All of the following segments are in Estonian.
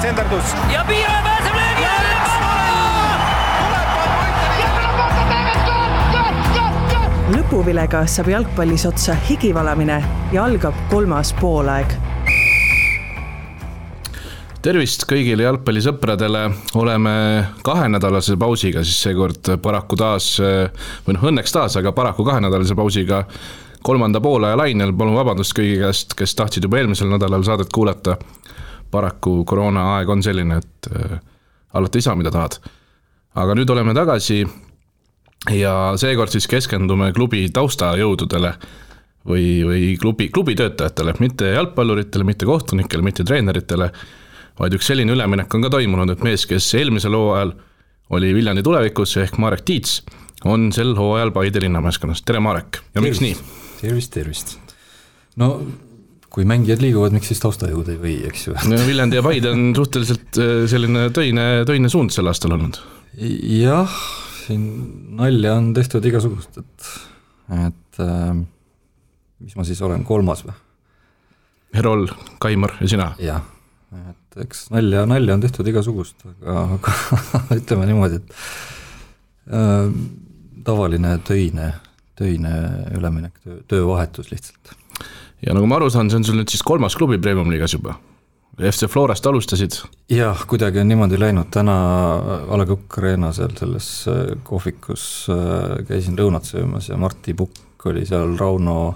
senderdus. Ja Piiraja pääseb löögi alla! Lõpuvilega saab jalgpallis otsa higivalamine ja algab 3. poolaeg. Tervist kõigile jalgpallisõpradele, oleme 2-nädalase pausiga, siis seekord paraku taas, või õnneks taas, aga paraku 2-nädalase pausiga 3. poolaja lainel. Palun vabandust kõigi käest, kes tahtsid juba eelmisel nädalal saadet kuulata. Paraku koroona aeg on selline, et alati ei saa, mida tahad. Aga nüüd oleme tagasi ja seekord siis keskendume klubi taustajõududele või klubi töötajatele, mitte jalgpalluritele, mitte kohtunikele, mitte treeneritele, vaid üks selline üleminek on ka toimunud, et mees, kes eelmisel hooajal oli Viljandi tulevikus ehk Marek Tiits, on sel hooajal Paide linnameeskonnas. Tere Marek, ja miks nii? Tervist. No, kui mängijad liiguvad, miks siis taustajõud ei või, eks ju? Viljandi ja Paide on suhteliselt selline töine suund sel aastal olnud. Jah, siin nalja on tehtud igasugust, et mis ma siis olen, 3. või? Herol, Kaimar ja sina? Jah, et eks nalja on tehtud igasugust, aga ütleme niimoodi, et tavaline töine üleminek, töövahetus lihtsalt. Ja nagu ma aru saan, see on sul nüüd siis 3. klubi Premium-liigas juba. FC Florast alustasid? Jah, kuidagi on niimoodi läinud. Täna A. Le Coq Arena selles kohvikus käisin lõunat söömas ja Martti Pukk oli seal Rauno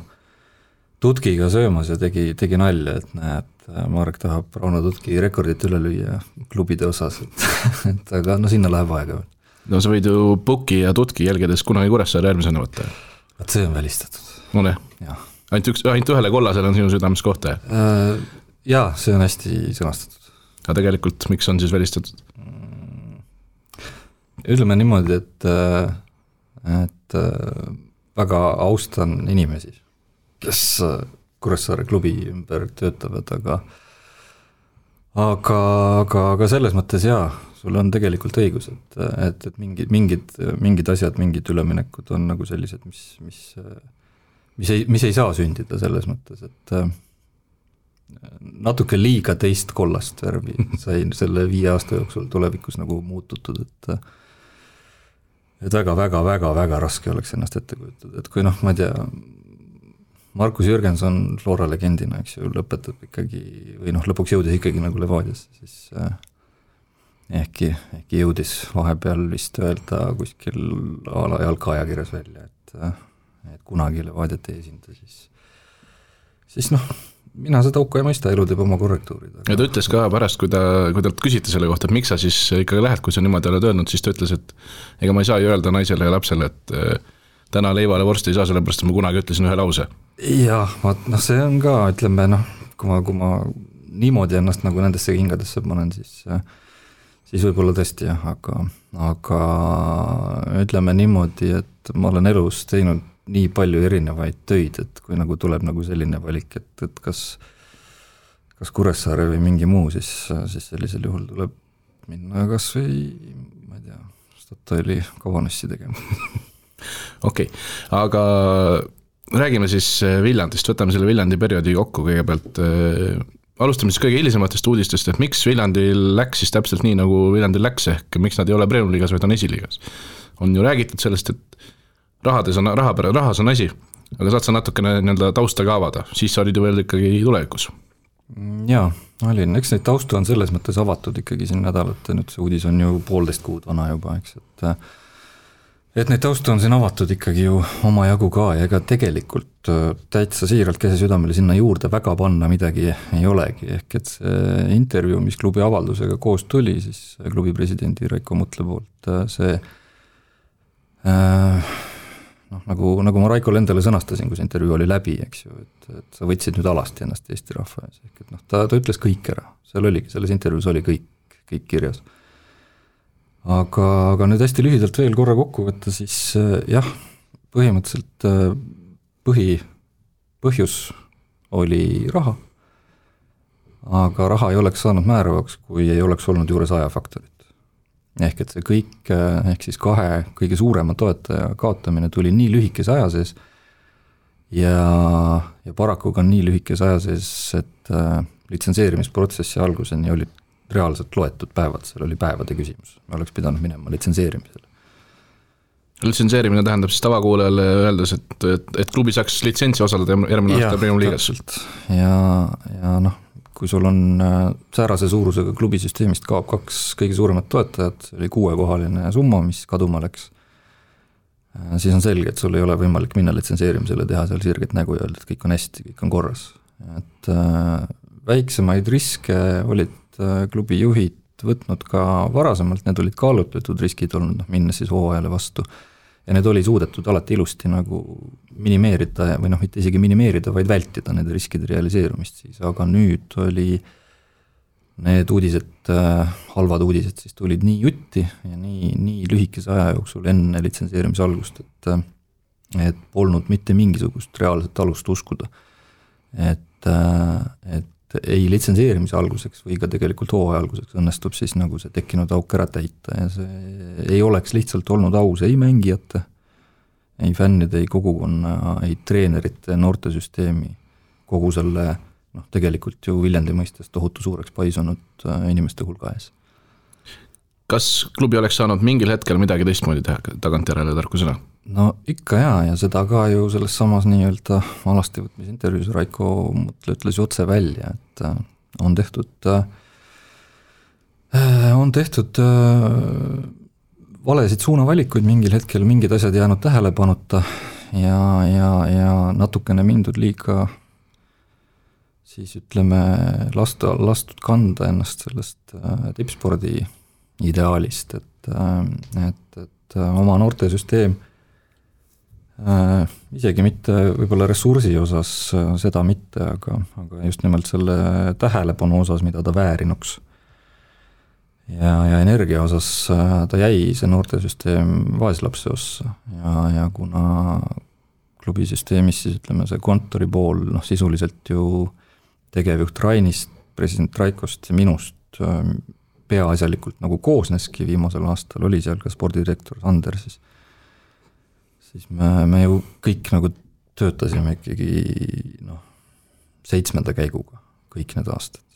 Tutkiga söömas ja tegi nalja, et näed, Marek tahab Rauno Tutki rekordit üle lüüa klubide osas, et aga no sinna läheb aega. No sa võid ju Pukki ja Tutki jälgedes kunagi Kuressaare järgmisena võtta. Et see on välistatud. No ne? Ainult ühele kollasele on sinu südames kohta? Jaa, see on hästi sõnastatud. Aga tegelikult, miks on siis välistatud? Ütleme niimoodi, et väga austan inimesi, kes Kuressaare klubi ümber töötavad, aga selles mõttes jaa, sul on tegelikult õigus, et mingid asjad, mingid üleminekud on nagu sellised, mis ei saa sündida selles mõttes, et natuke liiga teist kollast värvi sai selle 5 aasta jooksul tulevikus nagu muututud, et väga raske oleks ennast ette kujutada, et kui ma ei tea, Markus Jürgenson Flora legendina, eks ju, lõpetab ikkagi, või lõpuks jõudis ikkagi nagu Levadiasse, siis ehkki jõudis vahepeal vist öelda kuskil ala jalgaajakirjas välja, et kunagi Levadiat ei esinda, siis mina seda auku ei mõista, elu teeb oma korrektuurid. Ja ta ütles ka pärast, kui ta küsiti selle kohta, et miks sa siis ikkagi lähed, kui sa niimoodi oled öelnud, siis ta ütles, et ega ma ei saa ju öelda naisele ja lapsele, et täna leivale vorsti ei saa, sellepärast ma kunagi ütlesin ühe lause. Jah, see on ka, ütleme, kui ma niimoodi ennast nagu nendesse kingadesse panen, siis võib-olla tõesti jah, aga ütleme niimoodi, et ma olen elus teinud nii palju erinevaid töid, et kui nagu tuleb nagu selline valik, et kas Kuressaare või mingi muu, siis sellisel juhul tuleb minna kas või, ma ei tea, Statoili kavanessi tegema. Okei, aga räägime siis Viljandist, võtame selle Viljandi perioodi kokku kõigepealt. Alustame siis kõige hilisematest uudistest, et miks Viljandil läks siis täpselt nii, nagu Viljandil läks, ehk miks nad ei ole Premium-liigas, vaid on esiliigas. On ju räägitud sellest, et rahas on asi, aga saad sa natukene tausta ka avada, siis sa olid ju veel ikkagi tulevikus. Jaa, olin, eks neid taustu on selles mõttes avatud ikkagi siin nädalat, nüüd see uudis on ju 1,5 kuud vana juba, eks, et neid taustu on siin avatud ikkagi ju oma jagu ka ja ega tegelikult täitsa siiralt käse südamele sinna juurde väga panna midagi ei olegi, ehk et see intervjuu, mis klubi avaldusega koos tuli, siis klubi presidendi Raiko Mutle poolt, see nagu ma Raikole endale sõnastasin, kui see intervjuu oli läbi, eks ju, et sa võtsid nüüd alasti ennast Eesti rahva ees, ehk et ta ütles kõik ära, selles intervjuus oli kõik kirjas. Aga nüüd hästi lühidalt veel korra kokku võtta, siis jah, põhimõtteliselt põhjus oli raha, aga raha ei oleks saanud määravaks, kui ei oleks olnud juures ajafaktorit. Ehk et see kõik, ehk siis 2 kõige suurema toetaja kaotamine tuli nii lühikese aja sees ja paraku ka nii lühikese aja sees, et litsenseerimisprotsessi alguseni olid reaalselt loetud päevad, seal oli päevade küsimus, me oleks pidanud minema litsenseerimisele. Litsenseerimine tähendab siis tavakuulajale öeldes, et klubi saaks litsentsi osaleda järgmine aasta Premium liigas. Ja noh, kui sul on säärase suurusega klubisüsteemist kaob 2 kõige suuremat toetajat, see oli 6-kohaline summa, mis kaduma läks, siis on selge, et sul ei ole võimalik minna litsenseerimisele, teha seal sirget nägu ja öelda, et kõik on hästi, kõik on korras. Et väiksemaid riske olid klubi juhid võtnud ka varasemalt, need olid kaalutletud riskid olnud, minnes siis hooajale vastu. Ja need oli suudetud alati ilusti nagu minimeerida või mitte isegi minimeerida, vaid vältida need riskide realiseerumist siis, aga nüüd oli need uudised, halvad uudised siis tulid nii jutti ja nii lühikese aja jooksul enne litsenseerimise algust, et polnud mitte mingisugust reaalset alust uskuda, et ei litsenseerimise alguseks või ka tegelikult hooaja alguseks õnnestub siis nagu see tekkinud auk ära täita ja see ei oleks lihtsalt olnud aus ei mängijate, ei fännide, ei kogukonna, ei treenerite, noortesüsteemi, kogu selle tegelikult ju Viljandi mõistes tohutu suureks paisunud inimeste hulga ees. Kas klubi oleks saanud mingil hetkel midagi teistmoodi teha tagantjärele tarkusena? No ikka ja seda ka ju selles samas nii-öelda alasti võtmise intervjuus Raiko Mutle ütles otse välja, et on tehtud valesid suunavalikuid mingil hetkel, mingid asjad jäänud tähelepanuta ja natukene mindud liiga siis ütleme lastud kanda ennast sellest tippspordi ideaalist, et oma noortesüsteem isegi mitte võib-olla ressursi osas seda mitte, aga just nimelt selle tähelepanu osas, mida ta väärinuks. Ja energia osas ta jäi see noortesüsteem vaeslapse ossa ja kuna klubisüsteemis siis ütleme see kontori pool sisuliselt ju tegevjuht Rainist, president Raikost ja minust peaasjalikult nagu koosneski, viimasel aastal oli seal ka spordidirektor Sander, siis me ju kõik nagu töötasime ikkagi 7. käiguga kõik need aastad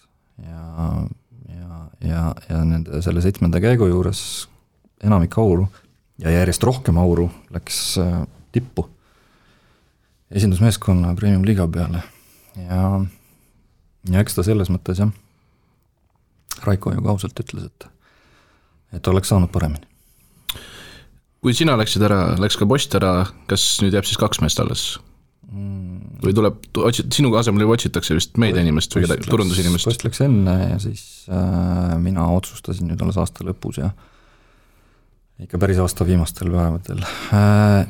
ja nende selle 7. käigu juures enamik auru ja järjest rohkem auru läks tippu esindusmeeskonna Premium liiga peale ja eks ta selles mõttes Raiko ju kausalt ütles, et oleks saanud paremini. Kui sina läksid ära, läks ka Post ära, kas nüüd jääb siis 2 meest alles? Või tuleb, sinu asemel juba otsitakse vist meediainimest või turundusinimest? Post läks enne ja siis mina otsustasin nüüd alles aasta lõpus ja ikka päris aasta viimastel päevadel.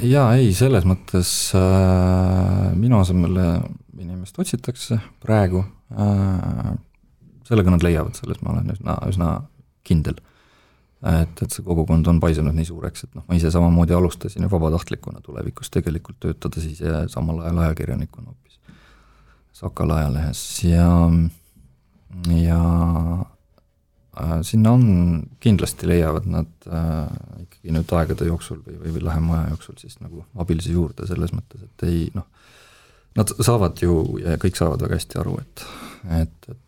Ja ei, selles mõttes minu asemel inimest otsitakse praegu, sellega nad leiavad, selles ma olen üsna kindel. Et see kogukond on paisunud nii suureks, et ma ise samamoodi alustasin ja vabatahtlikuna tulevikus tegelikult töötada siis ja samal ajal ajakirjanikuna hoopis Sakala ajalehes ja sinna on kindlasti leiavad nad ikkagi nüüd aegade jooksul või lähema aja jooksul siis nagu abilisi juurde selles mõttes, et ei nad saavad ju ja kõik saavad väga hästi aru, et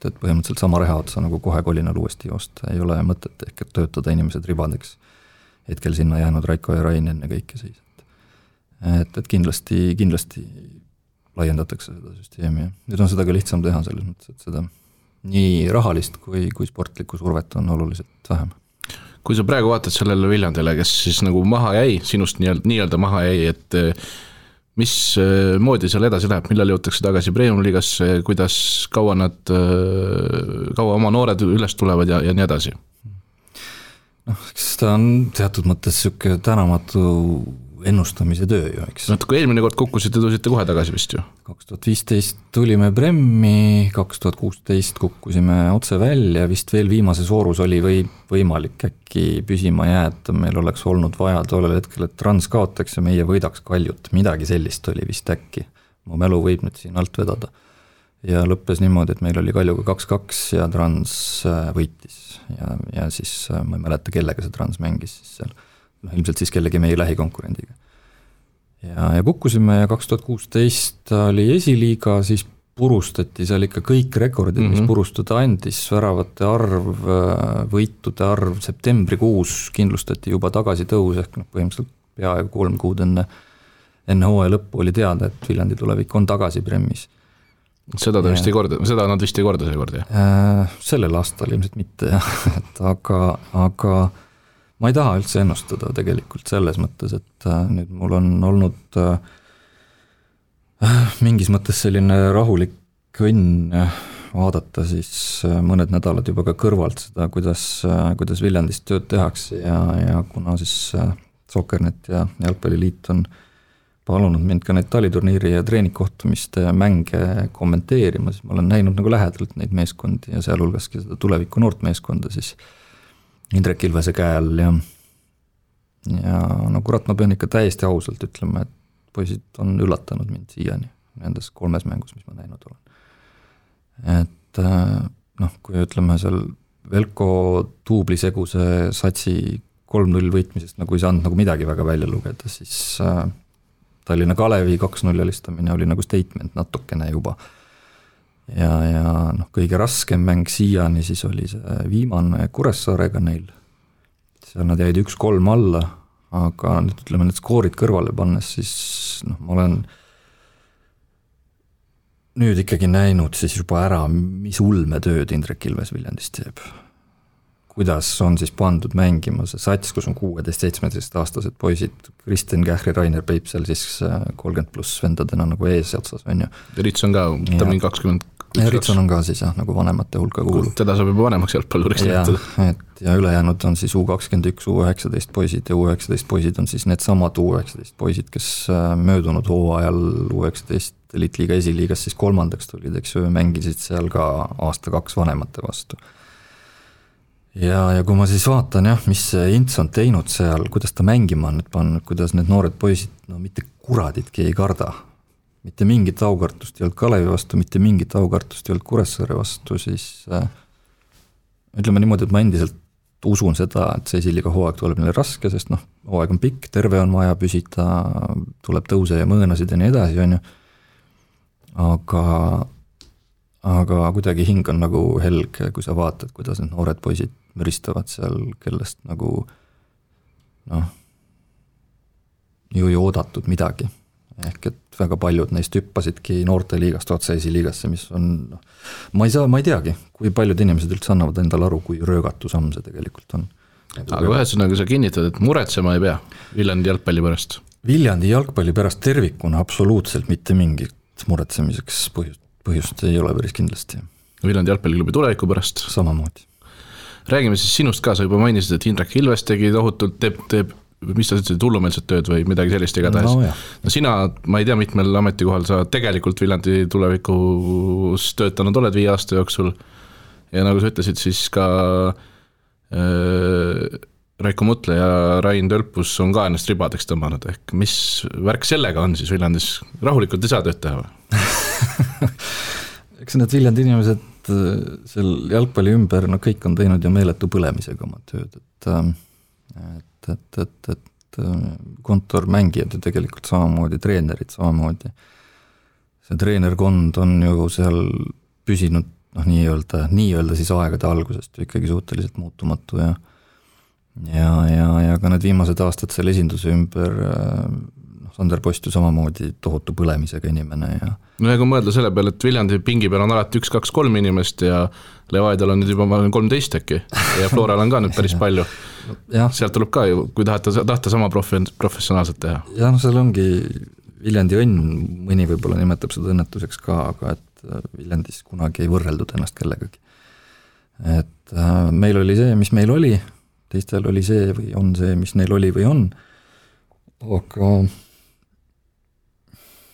põhimõtteliselt sama reha otsa nagu kohe kolinal uuesti joosta ei ole mõtet ehk et töötada inimesed ribadeks hetkel sinna jäänud Raiko ja Rain enne kõike siis. Et kindlasti laiendatakse seda süsteemi ja nüüd on seda ka lihtsam teha selles mõttes, et seda nii rahalist kui sportlikku survet on oluliselt vähem. Kui sa praegu vaatad sellele Viljandile, kes siis nagu maha jäi, sinust nii-öelda maha jäi, et mis moodi seal edasi läheb, millal jõutakse tagasi Premium liigasse, kuidas kaua oma noored üles tulevad ja nii edasi? Eks ta on teatud mõttes selline tänamatu ennustamise töö ju, eks. Kui eelmine kord kukkusite, tulite kohe tagasi vist ju? 2015 tulime Premmi, 2016 kukkusime otse välja, vist veel viimases voorus oli võimalik äkki püsima jääda, meil oleks olnud vaja tollel hetkel, et Trans kaotaks ja meie võidaks Kaljut, midagi sellist oli vist äkki, mu mälu võib nüüd siin alt vedada. Ja lõppes niimoodi, et meil oli Kaljuga 2-2 ja Trans võitis ja siis ma ei mäleta, kellega see Trans mängis siis seal. Ilmselt siis kellegi meie lähikonkurendiga. Ja kukkusime ja 2016 oli esiliiga, siis purustati seal ikka kõik rekordid, mis purustada andis, väravate arv, võitude arv, septembrikuus kindlustati juba tagasitõus, ehk põhimõtteliselt peaaegu 3 kuud enne hooaja lõppu oli teada, et Viljandi tulevik on tagasi Premis. Seda nad vist ei korda seekord, jah? Sellel aastal ilmselt mitte, jah. Aga ma ei taha üldse ennustada tegelikult selles mõttes, et nüüd mul on olnud mingis mõttes selline rahulik õnn vaadata siis mõned nädalad juba ka kõrvalt seda, kuidas Viljandis tööd tehakse ja kuna siis Soccernet ja Jalgpalliliit on palunud mind ka neid taliturniiri ja treeningkohtumiste mänge kommenteerima, siis ma olen näinud nagu lähedalt neid meeskondi ja sealhulgaski seda tuleviku noort meeskonda siis Indrek Ilvese käe all ja no kurat, ma pean ikka täiesti ausalt ütlema, et poisid on üllatanud mind siiani nendes 3 mängus, mis ma näinud olen. Et kui ütleme seal Velko duubliseguse satsi 3-0 võitmisest nagu ei saanud nagu midagi väga välja lugeda, siis Tallinna Kalevi 2-0 alistamine oli nagu statement natukene juba. Ja kõige raskem mäng siiani siis oli see viimane Kuressaarega neil. Seal nad jäid 1-3 alla, aga nüüd ütleme need skoorid kõrvale pannes, siis ma olen nüüd ikkagi näinud siis juba ära, mis ulmetööd Indrek Ilves Viljandist teeb. Kuidas on siis pandud mängima see sats, kus on 16-17 aastased poisid, Kristjan Kähri, Rainer Peip seal siis 30+ vendadena nagu ees otsas, on ju. Ritson ka, ta on 20. Ritson on ka siis jah, nagu vanemate hulka kuulub. Teda saab juba vanemaks jalgpalluriks näitada. Ja ülejäänud on siis U21, U19 poisid ja U19 poisid on siis need samad U19 poisid, kes möödunud hooajal U19 Elitliiga esiliigas siis 3. tulid, eks ju, mängisid seal ka 1-2 vanemate vastu. Ja kui ma siis vaatan jah, mis Ints on teinud seal, kuidas ta mängima on nüüd pannud, kuidas need noored poisid, mitte kuraditki ei karda. Mitte mingit aukartust ei olnud Kalevi vastu, mitte mingit aukartust ei olnud Kuressaare vastu, siis ütleme niimoodi, et ma endiselt usun seda, et see esiliiga hooaeg tuleb neile raske, sest hooaeg on pikk, terve on vaja püsida, tuleb tõuse ja mõõnasid ja nii edasi, on ju. Aga kuidagi hing on nagu helge, kui sa vaatad, kuidas need noored poisid müristavad seal, kellest nagu ju ei oodatud midagi. Ehk et väga paljud neist hüppasidki noorteliigast otse esiliigasse, mis on, ma ei teagi, kui paljud inimesed üldse annavad endale aru, kui röögatu samm see tegelikult on. Aga ühesõnaga sa kinnitad, et muretsema ei pea Viljandi jalgpalli pärast? Viljandi jalgpalli pärast tervikuna absoluutselt mitte mingit muretsemiseks põhjust ei ole päris kindlasti. Viljandi jalgpalliklubi tuleviku pärast? Samamoodi. Räägime siis sinust ka, sa juba mainisid, et Indrek Ilves tegi tohutult, teeb mis sa ütlesid, hullumeelset tööd või midagi sellist igatahes. No sina, ma ei tea, mitmel ametikohal sa tegelikult Viljandi tulevikus töötanud oled 5 aasta jooksul ja nagu sa ütlesid, siis ka Raiko Mutle ja Rain Tölpus on ka ennast ribadeks tõmmanud, ehk mis värk sellega on siis Viljandis, rahulikult ei saa tööd teha või? Eks need Viljandi inimesed seal jalgpalli ümber, kõik on teinud ju meeletu põlemisega oma tööd, et kontormängijad ja tegelikult samamoodi, treenerid samamoodi. See treenerkond on ju seal püsinud nii-öelda siis aegade algusest ikkagi suhteliselt muutumatu ja ka need viimased aastad seal esinduse ümber Sander Post ju samamoodi tohutu põlemisega inimene ja no kui mõelda selle peale, et Viljandi pingi peal on alati 1, 2, 3 inimest ja Levaidal on nüüd juba 13 äkki ja Floral on ka nüüd päris palju. Sealt tuleb ka ju, kui tahta sama professionaalselt teha. Ja seal ongi Viljandi õnn, mõni võib-olla nimetab seda õnnetuseks ka, aga et Viljandis kunagi ei võrreldud ennast kellegagi. Et meil oli see, mis meil oli, teistel oli see või on see, mis neil oli või on, aga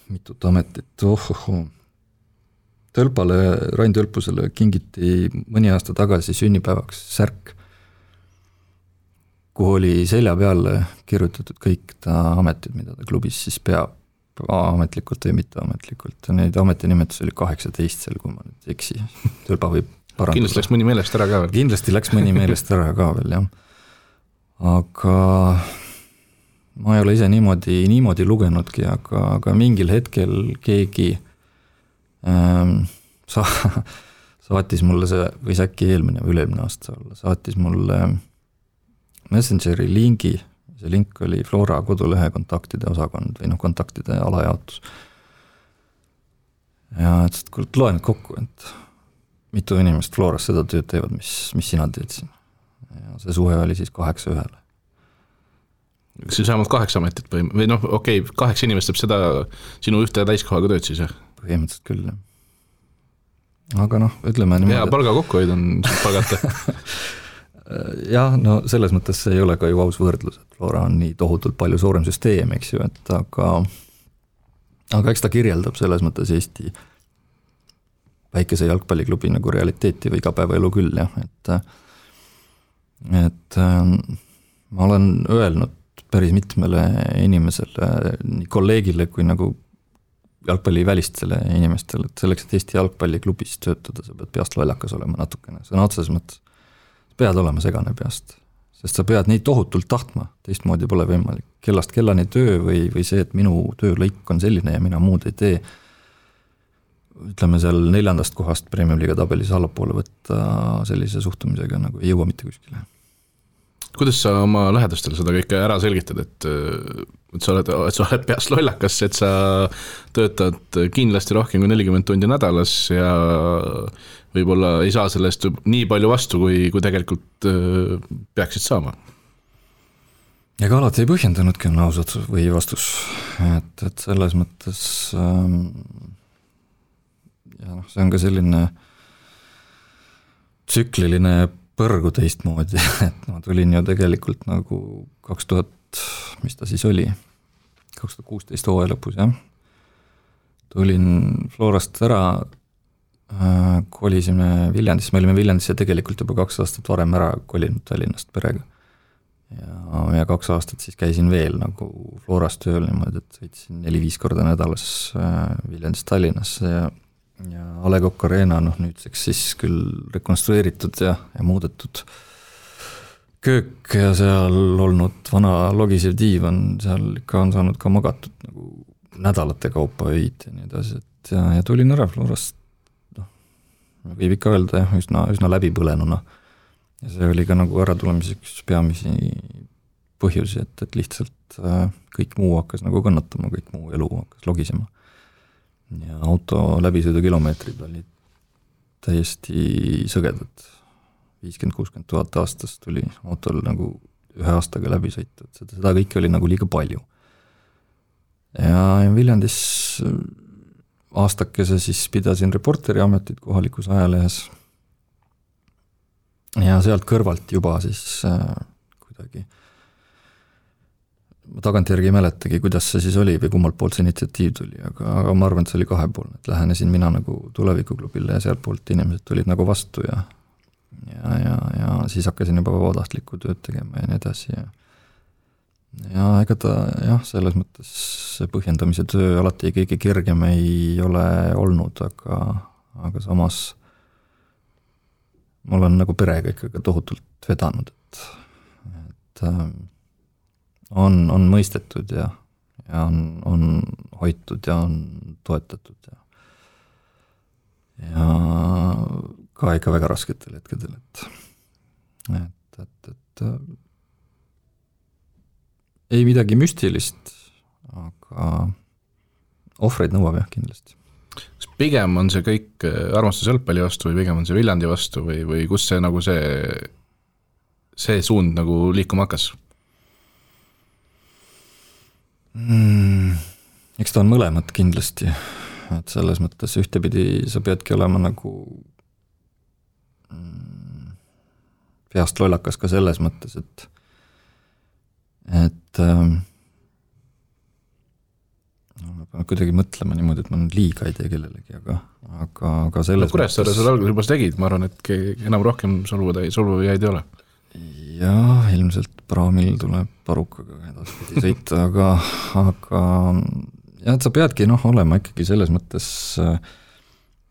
mitut ametit, Rain Tölpusele kingiti mõni aasta tagasi sünnipäevaks särk, kuhu oli selja peale kirjutatud kõik ta ametid, mida ta klubis siis peab, ametlikult või mitteametlikult. Neid ametinimetusi oli 18 seal, kui ma nüüd eksi. Tölpa võib parandada. Kindlasti läks mõni meelest ära ka veel. Kindlasti läks mõni meelest ära ka veel, jah. Aga ma ei ole ise niimoodi lugenudki, aga mingil hetkel keegi saatis mulle see, võis äkki eelmine või üle-eelmine aasta olla, saatis mulle Messengeri lingi, see link oli Flora kodulehe kontaktide osakond või kontaktide alajaotus. Ja et loen kokku, et mitu inimest Floras seda tööd teevad, mis sina teed siin. Ja see suhe oli siis 8-1. Kas see saamad 8 ametit või 8 inimest teeb seda sinu ühte täiskohaga tööd siis, jah? Põhimõtteliselt küll, jah. Aga ütleme niimoodi. Ja palga kokkuhoid on palgata. Jah, selles mõttes see ei ole ka ju aus võrdlus, et Flora on nii tohutult palju suurem süsteem, eks ju, et aga eks ta kirjeldab selles mõttes Eesti väikese jalgpalliklubi nagu realiteeti või igapäevaelu küll, jah, et ma olen öelnud päris mitmele inimesele, nii kolleegile kui nagu jalgpallivälistele inimestele, et selleks, et Eesti jalgpalliklubis töötada, sa pead peast lollakas olema natukene, sõna otseses mõttes. Pead olema segane peast, sest sa pead nii tohutult tahtma, teistmoodi pole võimalik. Kellast kellani töö või see, et minu töölõik on selline ja mina muud ei tee, ütleme seal 4. kohast Premium Liiga tabelis allapoole võtta sellise suhtumisega nagu ei jõua mitte kuskile. Kuidas sa oma lähedastele seda kõike ära selgitad, et sa oled peast lollakas, et sa töötad kindlasti rohkem kui 40 tundi nädalas ja võib-olla ei saa sellest nii palju vastu, kui tegelikult peaksid saama? Ega alati ei põhjendanudki on ausad või vastus, et selles mõttes ja see on ka selline tsükliline põrgu teistmoodi, et ma tulin ju tegelikult nagu 2000, mis ta siis oli, 2016 hooaja lõpus, jah. Tulin Florast ära, kolisime Viljandisse, me olime Viljandisse tegelikult juba 2 aastat varem ära kolinud Tallinnast perega. Ja 2 aastat siis käisin veel nagu Florast tööl niimoodi, et sõitsin 4-5 korda nädalas Viljandist Tallinnasse ja A. Le Coq Arena, nüüdseks siis küll rekonstrueeritud ja muudetud köök ja seal olnud vana logisev diivan, seal ikka on saanud ka magatud nagu nädalate kaupa öid ja nii edasi, et ja tulin ära Florast, võib ikka öelda jah, üsna läbipõlenuna ja see oli ka nagu äratulemiseks peamisi põhjusi, et lihtsalt kõik muu hakkas nagu kannatama, kõik muu elu hakkas logisema. Ja auto läbisõidukilomeetrid olid täiesti sõgedad. 50-60 000 aastas tuli autol nagu 1 aastaga läbi sõitud. Seda kõike oli nagu liiga palju. Ja Viljandis aastakese siis pidasin reporteri ametit kohalikus ajalehes. Ja sealt kõrvalt juba siis kuidagi ma tagantjärgi ei mäletagi, kuidas see siis oli või kummalt poolt see initsiatiiv tuli, aga ma arvan, et see oli 2poolne, et lähenesin mina nagu tulevikuklubile ja sealt poolt inimesed tulid nagu vastu ja siis hakkasin juba vabatahtlikku tööd tegema ja nii edasi ja ega ta jah, selles mõttes see põhjendamise töö alati kõige kergem ei ole olnud, aga samas ma olen nagu perega ikkagi tohutult vedanud, et on mõistetud ja on hoitud ja on toetatud ja ka ikka väga rasketel hetkedel, et ei midagi müstilist, aga ohvreid nõuab jah kindlasti. Kas pigem on see kõik armastus jalgpalli vastu või pigem on see Viljandi vastu või kus see nagu see suund nagu liikuma hakkas? Eks ta on mõlemad kindlasti, et selles mõttes ühtepidi sa peadki olema nagu peast lollakas ka selles mõttes, et ma pean kuidagi mõtlema niimoodi, et ma liiga ei tee kellelegi, aga selles Kuressaare seda alguses juba tegid, ma arvan, et enam rohkem solvujaid ei ole. Jah, ilmselt praamil tuleb parukaga edaspidi sõita, aga jah, et sa peadki olema ikkagi selles mõttes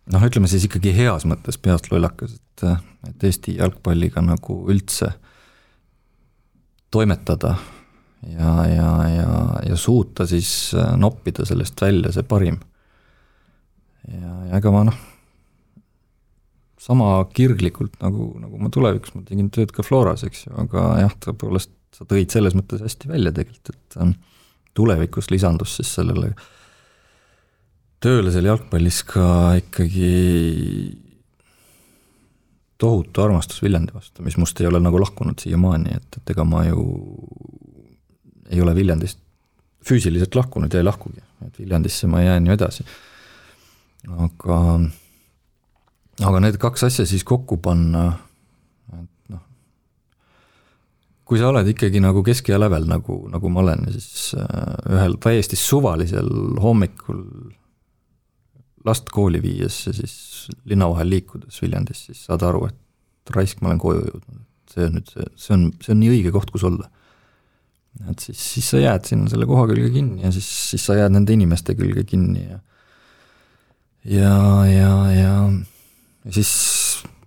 ütleme siis ikkagi heas mõttes peast lollakas, et Eesti jalgpalliga nagu üldse toimetada ja suuta siis noppida sellest välja see parim. ja ega ma sama kirglikult nagu ma tulevikus, ma tegin tööd ka Floras, eks ju, aga jah, tõepoolest sa tõid selles mõttes hästi välja tegelikult, et tulevikus lisandus siis sellele tööle seal jalgpallis ka ikkagi tohutu armastus Viljandi vastu, mis must ei ole nagu lahkunud siiamaani, et ega ma ju ei ole Viljandist füüsiliselt lahkunud ja ei lahkugi, et Viljandisse ma jään ju edasi. Aga need kaks asja siis kokku panna, et kui sa oled ikkagi nagu keskea lävel, nagu ma olen, siis ühel täiesti suvalisel hommikul last kooli viies ja siis linna vahel liikudes Viljandis, siis saad aru, et raisk ma olen koju jõudnud. See on nii õige koht, kus olla. Et siis sa jääd sinna selle koha külge kinni ja siis sa jääd nende inimeste külge kinni ja siis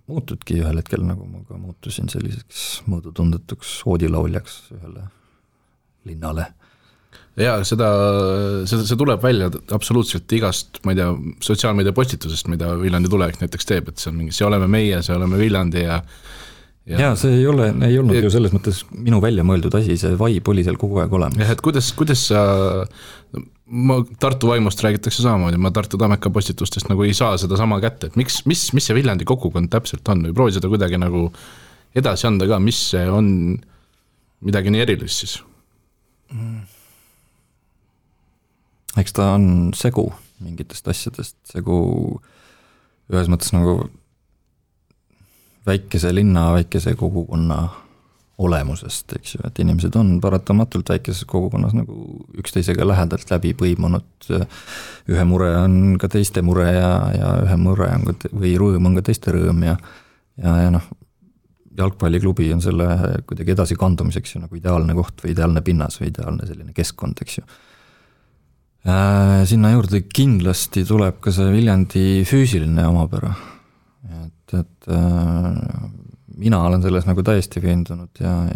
muutudki ühel hetkel, nagu ma ka muutusin selliseks mõõdutundetuks oodilauljaks ühele linnale. Ja see tuleb välja absoluutselt igast, ma ei tea, sotsiaalmeedia postitusest, mida Viljandi tulevik näiteks teeb, et see on mingi, see oleme meie, see oleme Viljandi ja see ei olnud ju selles mõttes minu välja mõeldud asi, see vaib oli seal kogu aeg olemas. Et kuidas sa, Tartu vaimust räägitakse samamoodi, ma Tartu Tammeka postitustest nagu ei saa seda sama kätte, et mis see Viljandi kogukond täpselt on või proovi seda kuidagi nagu edasi anda ka, mis see on midagi nii erilist siis? Eks ta on segu mingitest asjadest, segu ühes mõttes nagu väikese linna, väikese kogukonna olemusest, eks ju, et inimesed on paratamatult väikeses kogukonnas nagu üksteisega lähedalt läbi põimunud, ühe mure on ka teiste mure ja ühe mure on ka, või rõõm on ka teiste rõõm ja jalgpalliklubi on selle kuidagi edasi kandumiseks ju nagu ideaalne koht või ideaalne pinnas või ideaalne selline keskkond, eks ju. Sinna juurde kindlasti tuleb ka see Viljandi füüsiline omapära, et mina olen selles nagu täiesti veendunud ja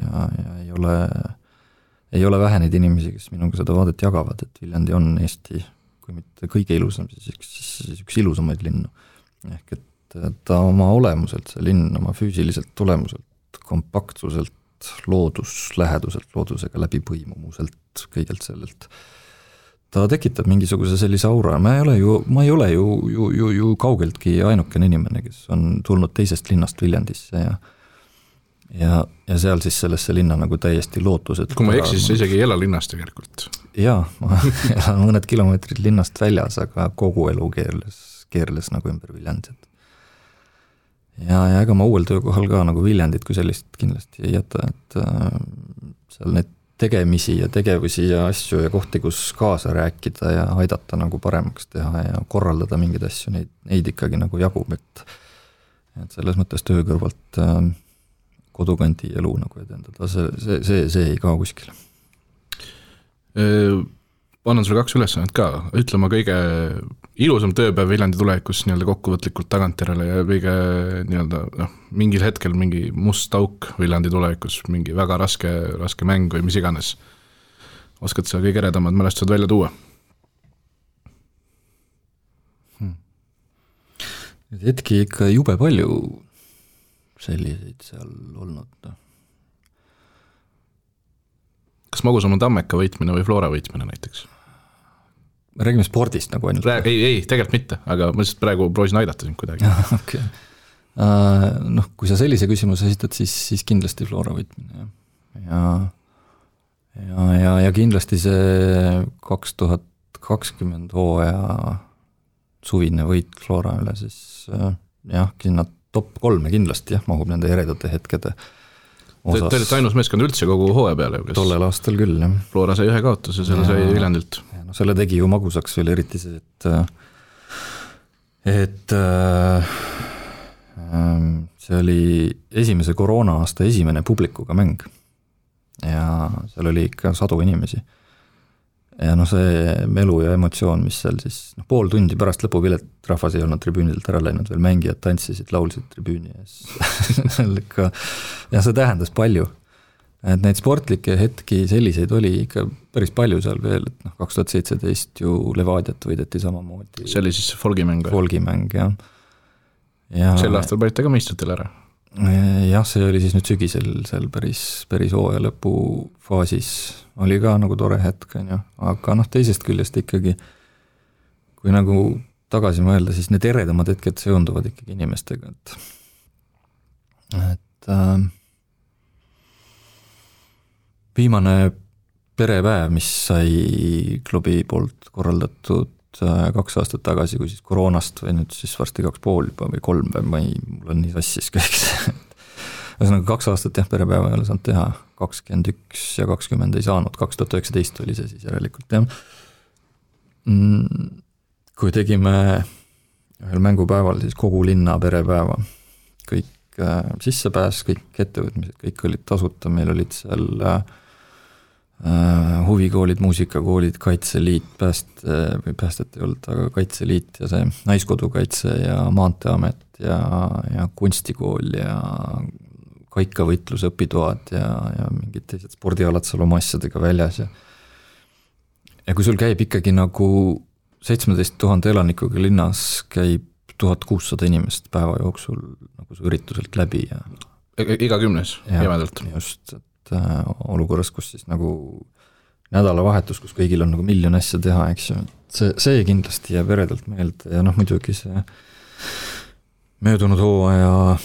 ei ole vähe neid inimesi, kes minuga seda vaadet jagavad, et Viljandi on Eesti, kui mitte kõige ilusam, siis üks ilusamaid linnu. Ehk et ta oma olemuselt, see linn oma füüsiliselt tulemuselt, kompaktsuselt, loodusläheduselt, loodusega läbipõimumuselt, kõigelt sellelt. Ta tekitab mingisuguse sellise aura, ma ei ole ju kaugeltki ainukene inimene, kes on tulnud teisest linnast Viljandisse ja seal siis sellesse linna nagu täiesti lootused. Kui ma eksis, isegi ei ela linnast tegelikult. Jaa, ma elan mõned kilomeetrid linnast väljas, aga kogu elu keerles nagu ümber Viljandit. Ja ega ma uuel töökohal ka nagu Viljandit kui sellist kindlasti ei jäta, et seal need tegemisi ja tegevusi ja asju ja kohti, kus kaasa rääkida ja aidata nagu paremaks teha ja korraldada mingeid asju, neid ikkagi nagu jagub, et selles mõttes töö kõrvalt kodukandi elu nagu edendada, see ei kao kuskile. Annan sulle 2 ülesannet ka, ütlema kõige ilusam tööpäev Viljandi tulevikus nii-öelda kokkuvõtlikult tagantjärele ja kõige nii-öelda mingil hetkel mingi must auk Viljandi tulevikus, mingi väga raske mäng või mis iganes. Oskad sa kõige eredamad mälestused välja tuua? Hetki ikka jube palju selliseid seal olnud. Kas Magusama Tammeka võitmine või Flora võitmine näiteks? Me räägime spordist nagu ainult. Ei, tegelikult mitte, aga ma lihtsalt praegu proovisin aidata sind kuidagi. Okay. Kui sa sellise küsimuse esitad, siis kindlasti Flora võitmine. Ja kindlasti see 2020 hooaja suvine võit Flora üle, siis sinna top 3 kindlasti mahub nende eredate hetkede osas. Te olete ainus meeskond üldse kogu hooaja peale. Tollel aastal küll, jah. Flora sai 1 kaotuse, selle sai Viljandilt. Selle tegi ju magusaks veel eriti see, et see oli esimese koroona aasta esimene publikuga mäng ja seal oli ikka 100 inimesi ja see melu ja emotsioon, mis seal siis pool tundi pärast lõpupilet rahvas ei olnud tribüünilt ära läinud, veel mängijad tantsisid, laulsid tribüüni ja see tähendas palju. et neid sportlikke hetki selliseid oli ikka päris palju seal veel, et 2017 ju Levadiat võideti samamoodi. See oli siis folgimäng? Folgimäng, jah. Sel aastal panite ka meistritel ära? Jah, see oli siis nüüd sügisel seal päris hooaja lõpu faasis, oli ka nagu tore hetk, aga teisest küljest ikkagi, kui nagu tagasi mõelda, siis need eredamad hetked seonduvad ikkagi inimestega, et viimane perepäev, mis sai klubi poolt korraldatud 2 aastat tagasi, kui siis koroonast või nüüd siis varsti 2,5 juba või 3 päev, mul on nii sassis kõik see. Ühesõnaga 2 aastat perepäeva ei ole saanud teha, 21 ja 20 ei saanud, 2019 oli see siis järelikult, jah. Kui tegime ühel mängupäeval siis kogu linna perepäeva, kõik sissepääs, kõik ettevõtmised, kõik olid tasuta, meil olid seal huvikoolid, muusikakoolid, Kaitseliit, päästet ei olnud, aga Kaitseliit ja see Naiskodukaitse ja Maanteeamet ja kunstikool ja kaikavõitluse õpitoad ja mingid teised spordialad seal oma asjadega väljas ja kui sul käib ikkagi nagu 17 000 elanikuga linnas käib 1600 inimest päeva jooksul nagu see ürituselt läbi ja iga 10 jämedalt. Just, et olukorras, kus siis nagu nädalavahetus, kus kõigil on nagu miljon asja teha, eks ju, see kindlasti jääb eredalt meelde ja muidugi see möödunud hooaja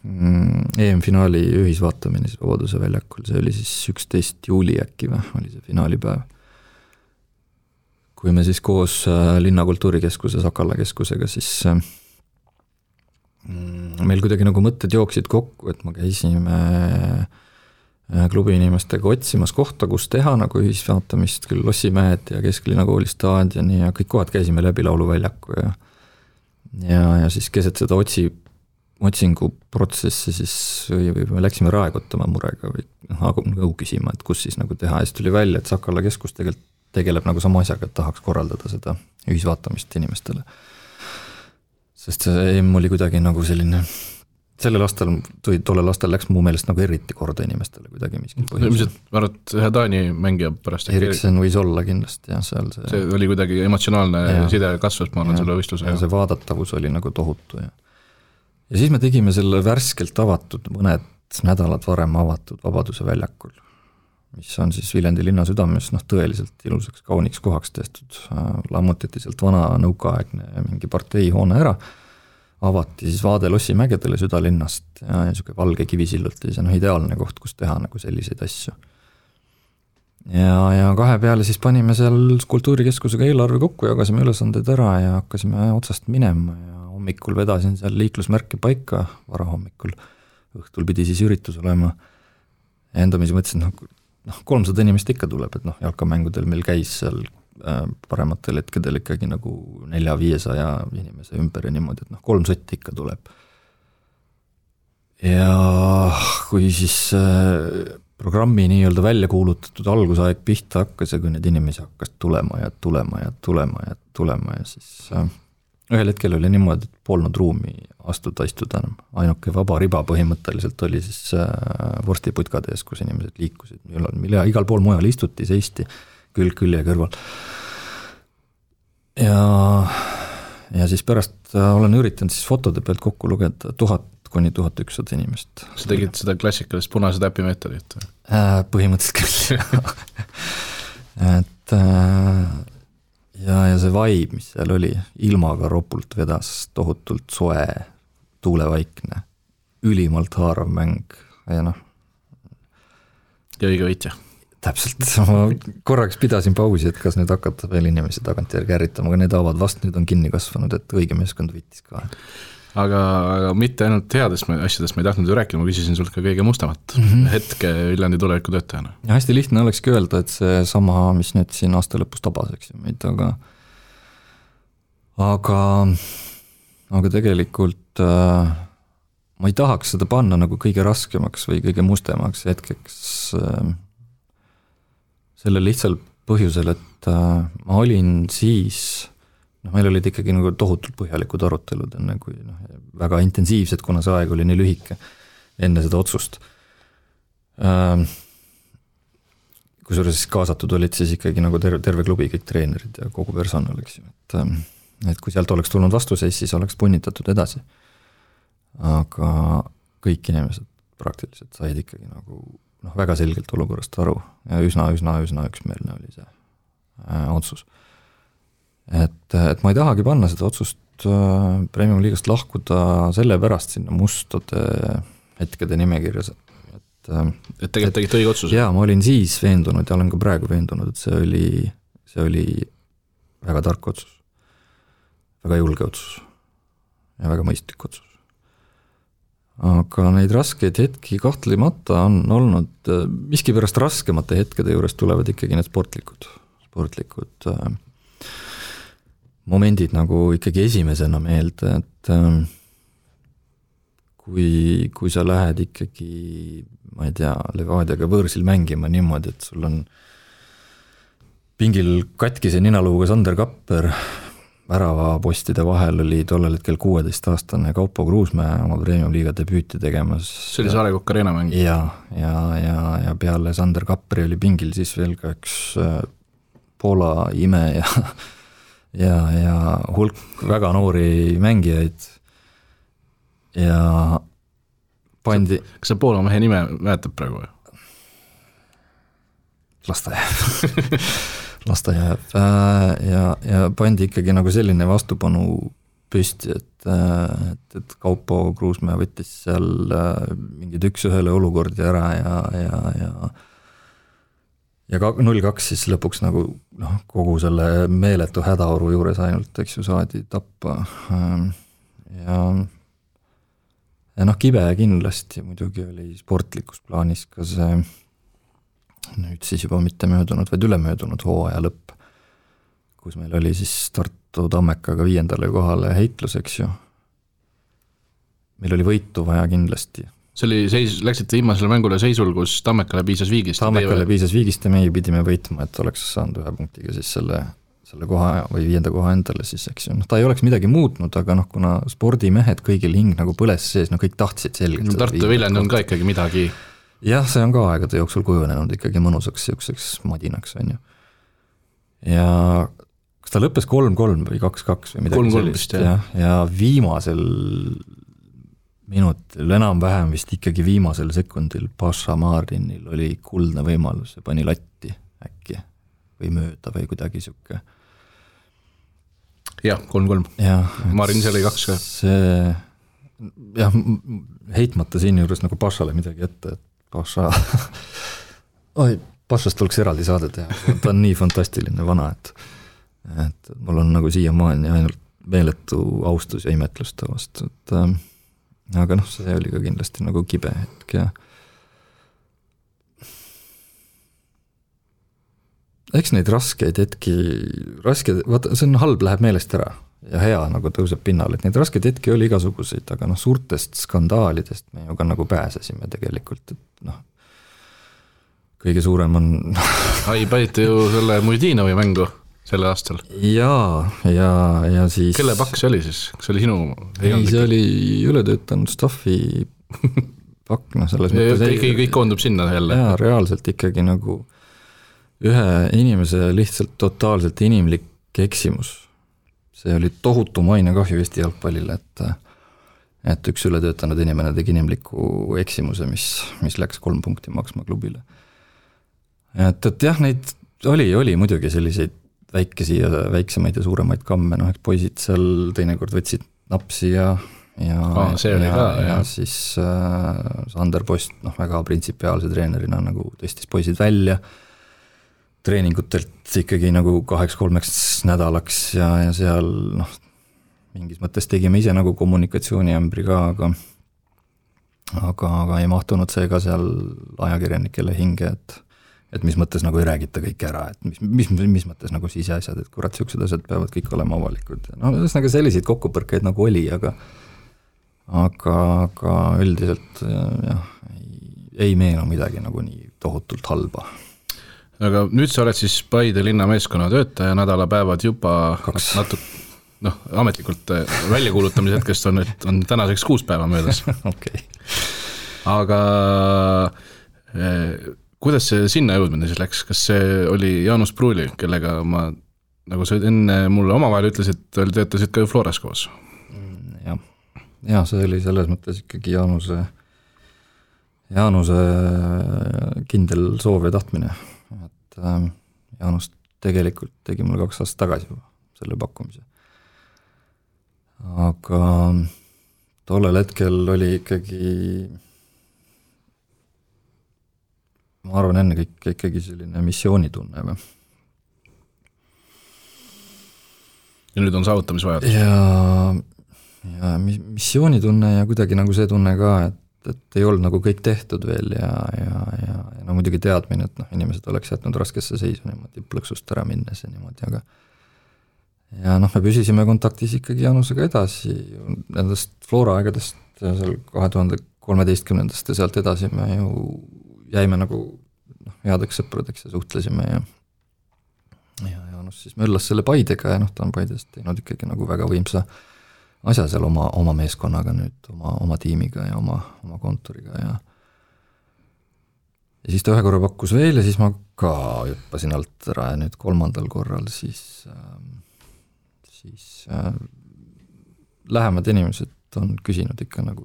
EM-finaali ühisvaatamine siis Vabaduse väljakul, see oli siis 11 juuli äkki või, oli see finaalipäev. Kui me siis koos Linnakultuurikeskuse Sakala keskusega, siis meil kuidagi nagu mõtted jooksid kokku, et me käisime klubi inimestega otsimas kohta, kus teha nagu ühisvaatamist, küll Lossimäed ja Kesklinna kooli staadioni ja kõik kohad käisime läbi lauluväljaku ja siis keset seda otsinguprotsessi siis või me läksime raekotama murega või nõu küsima, et kus siis nagu teha ja siis tuli välja, et Sakala keskus tegelikult tegeleb nagu sama asjaga, et tahaks korraldada seda ühisvaatamist inimestele. Sest see EM oli kuidagi nagu selline, tollel aastal läks mu meelest nagu eriti korda inimestele kuidagi miskil põhjusel. Ma arvan, et ühe Taani mängija pärast. Eriksen võis olla kindlasti, jah, seal see oli kuidagi emotsionaalne side kasvas, ma olen selle võistluse. Ja see vaadatavus oli nagu tohutu. Ja siis me tegime selle värskelt avatud, mõned nädalad varem avatud Vabaduse väljakul, mis on siis Viljandi linna südames tõeliselt ilusaks kauniks kohaks tehtud. Lammutati sealt vana nõukaaegne mingi parteihoone ära, avati siis vaade Lossimägedele südalinnast ja niisugune valge kivisillult ja see ideaalne koht, kus teha nagu selliseid asju. Ja 2 peale siis panime seal kultuurikeskusega eelarve kokku, jagasime ülesanded ära ja hakkasime otsast minema ja hommikul vedasin seal liiklusmärke paika, varahommikul, õhtul pidi siis üritus olema ja endamisi mõtlesin, 300 inimest ikka tuleb, et jalkamängudel meil käis seal parematel hetkedel ikkagi nagu 400-500 inimese ümber ja niimoodi, et 3 sotti ikka tuleb. Ja kui siis programmi nii-öelda välja kuulutatud algusaeg pihta hakkas ja kui need inimesi hakkas tulema ja siis ühel hetkel oli niimoodi, et polnud ruumi istuda enam. Ainuke vaba riba põhimõtteliselt oli siis vorstiputkade ees, kus inimesed liikusid, mille igal pool mujal istuti, seisti külg külje kõrval. Ja siis pärast olen üritanud siis fotode pealt kokku lugeda 1000 kuni 1100 inimest. Sa tegid seda klassikalist punase täpi meetodit? Põhimõtteliselt küll. Et ja see vibe, mis seal oli, ilmaga ropult vedas, tohutult soe, tuulevaikne, ülimalt haarav mäng ja ja õige võitja. Täpselt, ma korraks pidasin pausi, et kas nüüd hakata veel inimesi tagantjärgi ärritama, aga need haavad vast nüüd on kinni kasvanud, et õige meeskond võitis ka. Aga mitte ainult headest asjadest ma ei tahtnud ju rääkida, ma küsisin sult ka kõige mustamat hetke Viljandi tuleviku töötajana. Ja hästi lihtne olekski öelda, et see sama, mis nüüd siin aasta lõpus tabas, eks ju meid, aga tegelikult ma ei tahaks seda panna nagu kõige raskemaks või kõige mustemaks hetkeks selle lihtsal põhjusel, et ma olin siis, meil olid ikkagi nagu tohutult põhjalikud arutelud enne kui väga intensiivsed, kuna see aeg oli nii lühike enne seda otsust. Kusjuures siis kaasatud olid siis ikkagi nagu terve klubi, kõik treenerid ja kogu personal, eks ju, et kui sealt oleks tulnud vastuseis, siis oleks punnitatud edasi. Aga kõik inimesed praktiliselt said ikkagi nagu väga selgelt olukorrast aru ja üsna üksmeelne oli see otsus. Et ma ei tahagi panna seda otsust Premium liigast lahkuda selle pärast sinna mustade hetkede nimekirjas, et tegelikult tegite õige otsuse. Jaa, ma olin siis veendunud ja olen ka praegu veendunud, et see oli väga tark otsus, väga julge otsus ja väga mõistlik otsus. Aga neid raskeid hetki kahtlemata on olnud, miskipärast raskemate hetkede juures tulevad ikkagi need sportlikud momendid nagu ikkagi esimesena meelde, et kui sa lähed ikkagi, ma ei tea, Levadiaga võõrsil mängima niimoodi, et sul on pingil katkise ninaluuga Sander Kapper, väravapostide vahel oli tollel hetkel 16-aastane Kaupo Kruusmäe oma Premium liiga debüüti tegemas. See oli Saare Kokk Arena mäng. Ja peale Sander Kapperi oli pingil siis veel ka üks Poola ime ja hulk väga noori mängijaid ja pandi... Kas sa Poola mehe nime mäletad praegu või? Lasta jääb ja pandi ikkagi nagu selline vastupanu püsti, et Kaupo Kruusmäe võttis seal mingid 1-1 olukordi ära ja 0-2 siis lõpuks nagu kogu selle meeletu hädaoru juures ainult, eks ju, saadi tappa ja kibe kindlasti muidugi oli sportlikus plaanis ka see nüüd siis juba mitte möödunud, vaid ülemöödunud hooaja lõpp, kus meil oli siis Tartu Tammekaga 5. kohale heitlus, eks ju. Meil oli võitu vaja kindlasti. See oli läksite viimasele mängule seisul, kus Tammekale piisas viigist. Tammekale piisas viigist ja meie pidime võitma, et oleks saanud 1 punktiga siis selle koha või 5. koha endale siis, eks ju. Ta ei oleks midagi muutnud, aga kuna spordimehed kõigil hing nagu põles sees, kõik tahtsid selgelt. Tartu Viljandi on ka ikkagi midagi. Jah, see on ka aegade jooksul kujunenud ikkagi mõnusaks siukseks madinaks, on ju. Ja kas ta lõppes 3-3 või 2-2 või midagi sellist, ja viimasel minutil, enam-vähem vist ikkagi viimasel sekundil Paša Marinil oli kuldne võimalus ja pani latti äkki või mööda või kuidagi siuke. Jah, 3-3. Marin seal oli 2 ka. See, heitmata siin juures nagu Pašale midagi ette, et Pašast tuleks eraldi saade teha, ta on nii fantastiline vana, et mul on nagu siiamaani ainult meeletu austus ja imetlus ta vastu, aga see oli ka kindlasti nagu kibe hetk ja eks neid raskeid hetki, vaata, see on halb, läheb meelest ära ja hea nagu tõuseb pinnal, et neid raskeid hetki oli igasuguseid, aga suurtest skandaalidest me ju ka nagu pääsesime tegelikult, et kõige suurem on... Panite ju selle Mujdinovi mängu selle aastal. Ja siis... Kelle pakk see oli siis? Kas see oli sinu? Ei, see oli ületöötanud staffi pakk, selles mõttes... Kõik koondub sinna jälle. Jaa, reaalselt ikkagi nagu ühe inimese lihtsalt totaalselt inimlik eksimus. See oli tohutu mainekahju Eesti jalgpallile, et üks ületöötanud inimene tegi inimliku eksimuse, mis läks 3 punkti maksma klubile. Et jah, neid oli muidugi selliseid väikesi ja väiksemaid ja suuremaid kamme, eks poisid seal teinekord võtsid napsi ja siis Sander Post väga printsipiaalse treenerina nagu tõstis poisid välja treeningutelt ikkagi nagu 2-3 nädalaks ja seal mingis mõttes tegime ise nagu kommunikatsiooniämbri ka, aga ei mahtunud see ka seal ajakirjanikele hinge, et mis mõttes nagu ei räägita kõik ära, et mis mõttes nagu siseasjad, et kurat, siuksed asjad peavad kõik olema avalikud. Ühesõnaga selliseid kokkupõrkeid nagu oli, aga üldiselt ei meenu midagi nagu nii tohutult halba. Aga nüüd sa oled siis Paide linna meeskonna töötaja, nädalapäevad juba ametlikult väljakuulutamise hetkest on tänaseks 6 päeva möödas. Okay. Aga kuidas see sinna jõudmine siis läks, kas see oli Jaanus Pruuli, kellega ma, nagu sa enne mulle omavahel ütlesid, töötasid ka ju Floras koos? Ja see oli selles mõttes ikkagi Jaanuse kindel soov ja tahtmine, et Jaanus tegelikult tegi mulle 2 aastat tagasi juba selle pakkumise. Aga tollel hetkel oli ikkagi, ma arvan enne kõik ikkagi selline missioonitunne. Ja nüüd on saavutamisvajadus. Ja missioonitunne ja kuidagi nagu see tunne ka, et ei olnud nagu kõik tehtud veel ja no muidugi teadmine, et inimesed oleks jätnud raskesse seisu niimoodi plõksust ära minnes ja niimoodi, aga ja me püsisime kontaktis ikkagi Jaanusega edasi, nendest Flora aegadest seal 2013 ja sealt edasi me ju jäime nagu headeks sõpradeks ja suhtlesime ja Jaanus siis möllas selle Paidega ja ta on Paidest teinud ikkagi nagu väga võimsa asja seal oma meeskonnaga nüüd, oma tiimiga ja oma kontoriga ja siis ta ühe korra pakkus veel ja siis ma ka hüppasin alt ära ja nüüd 3. korral siis lähemad inimesed on küsinud ikka nagu,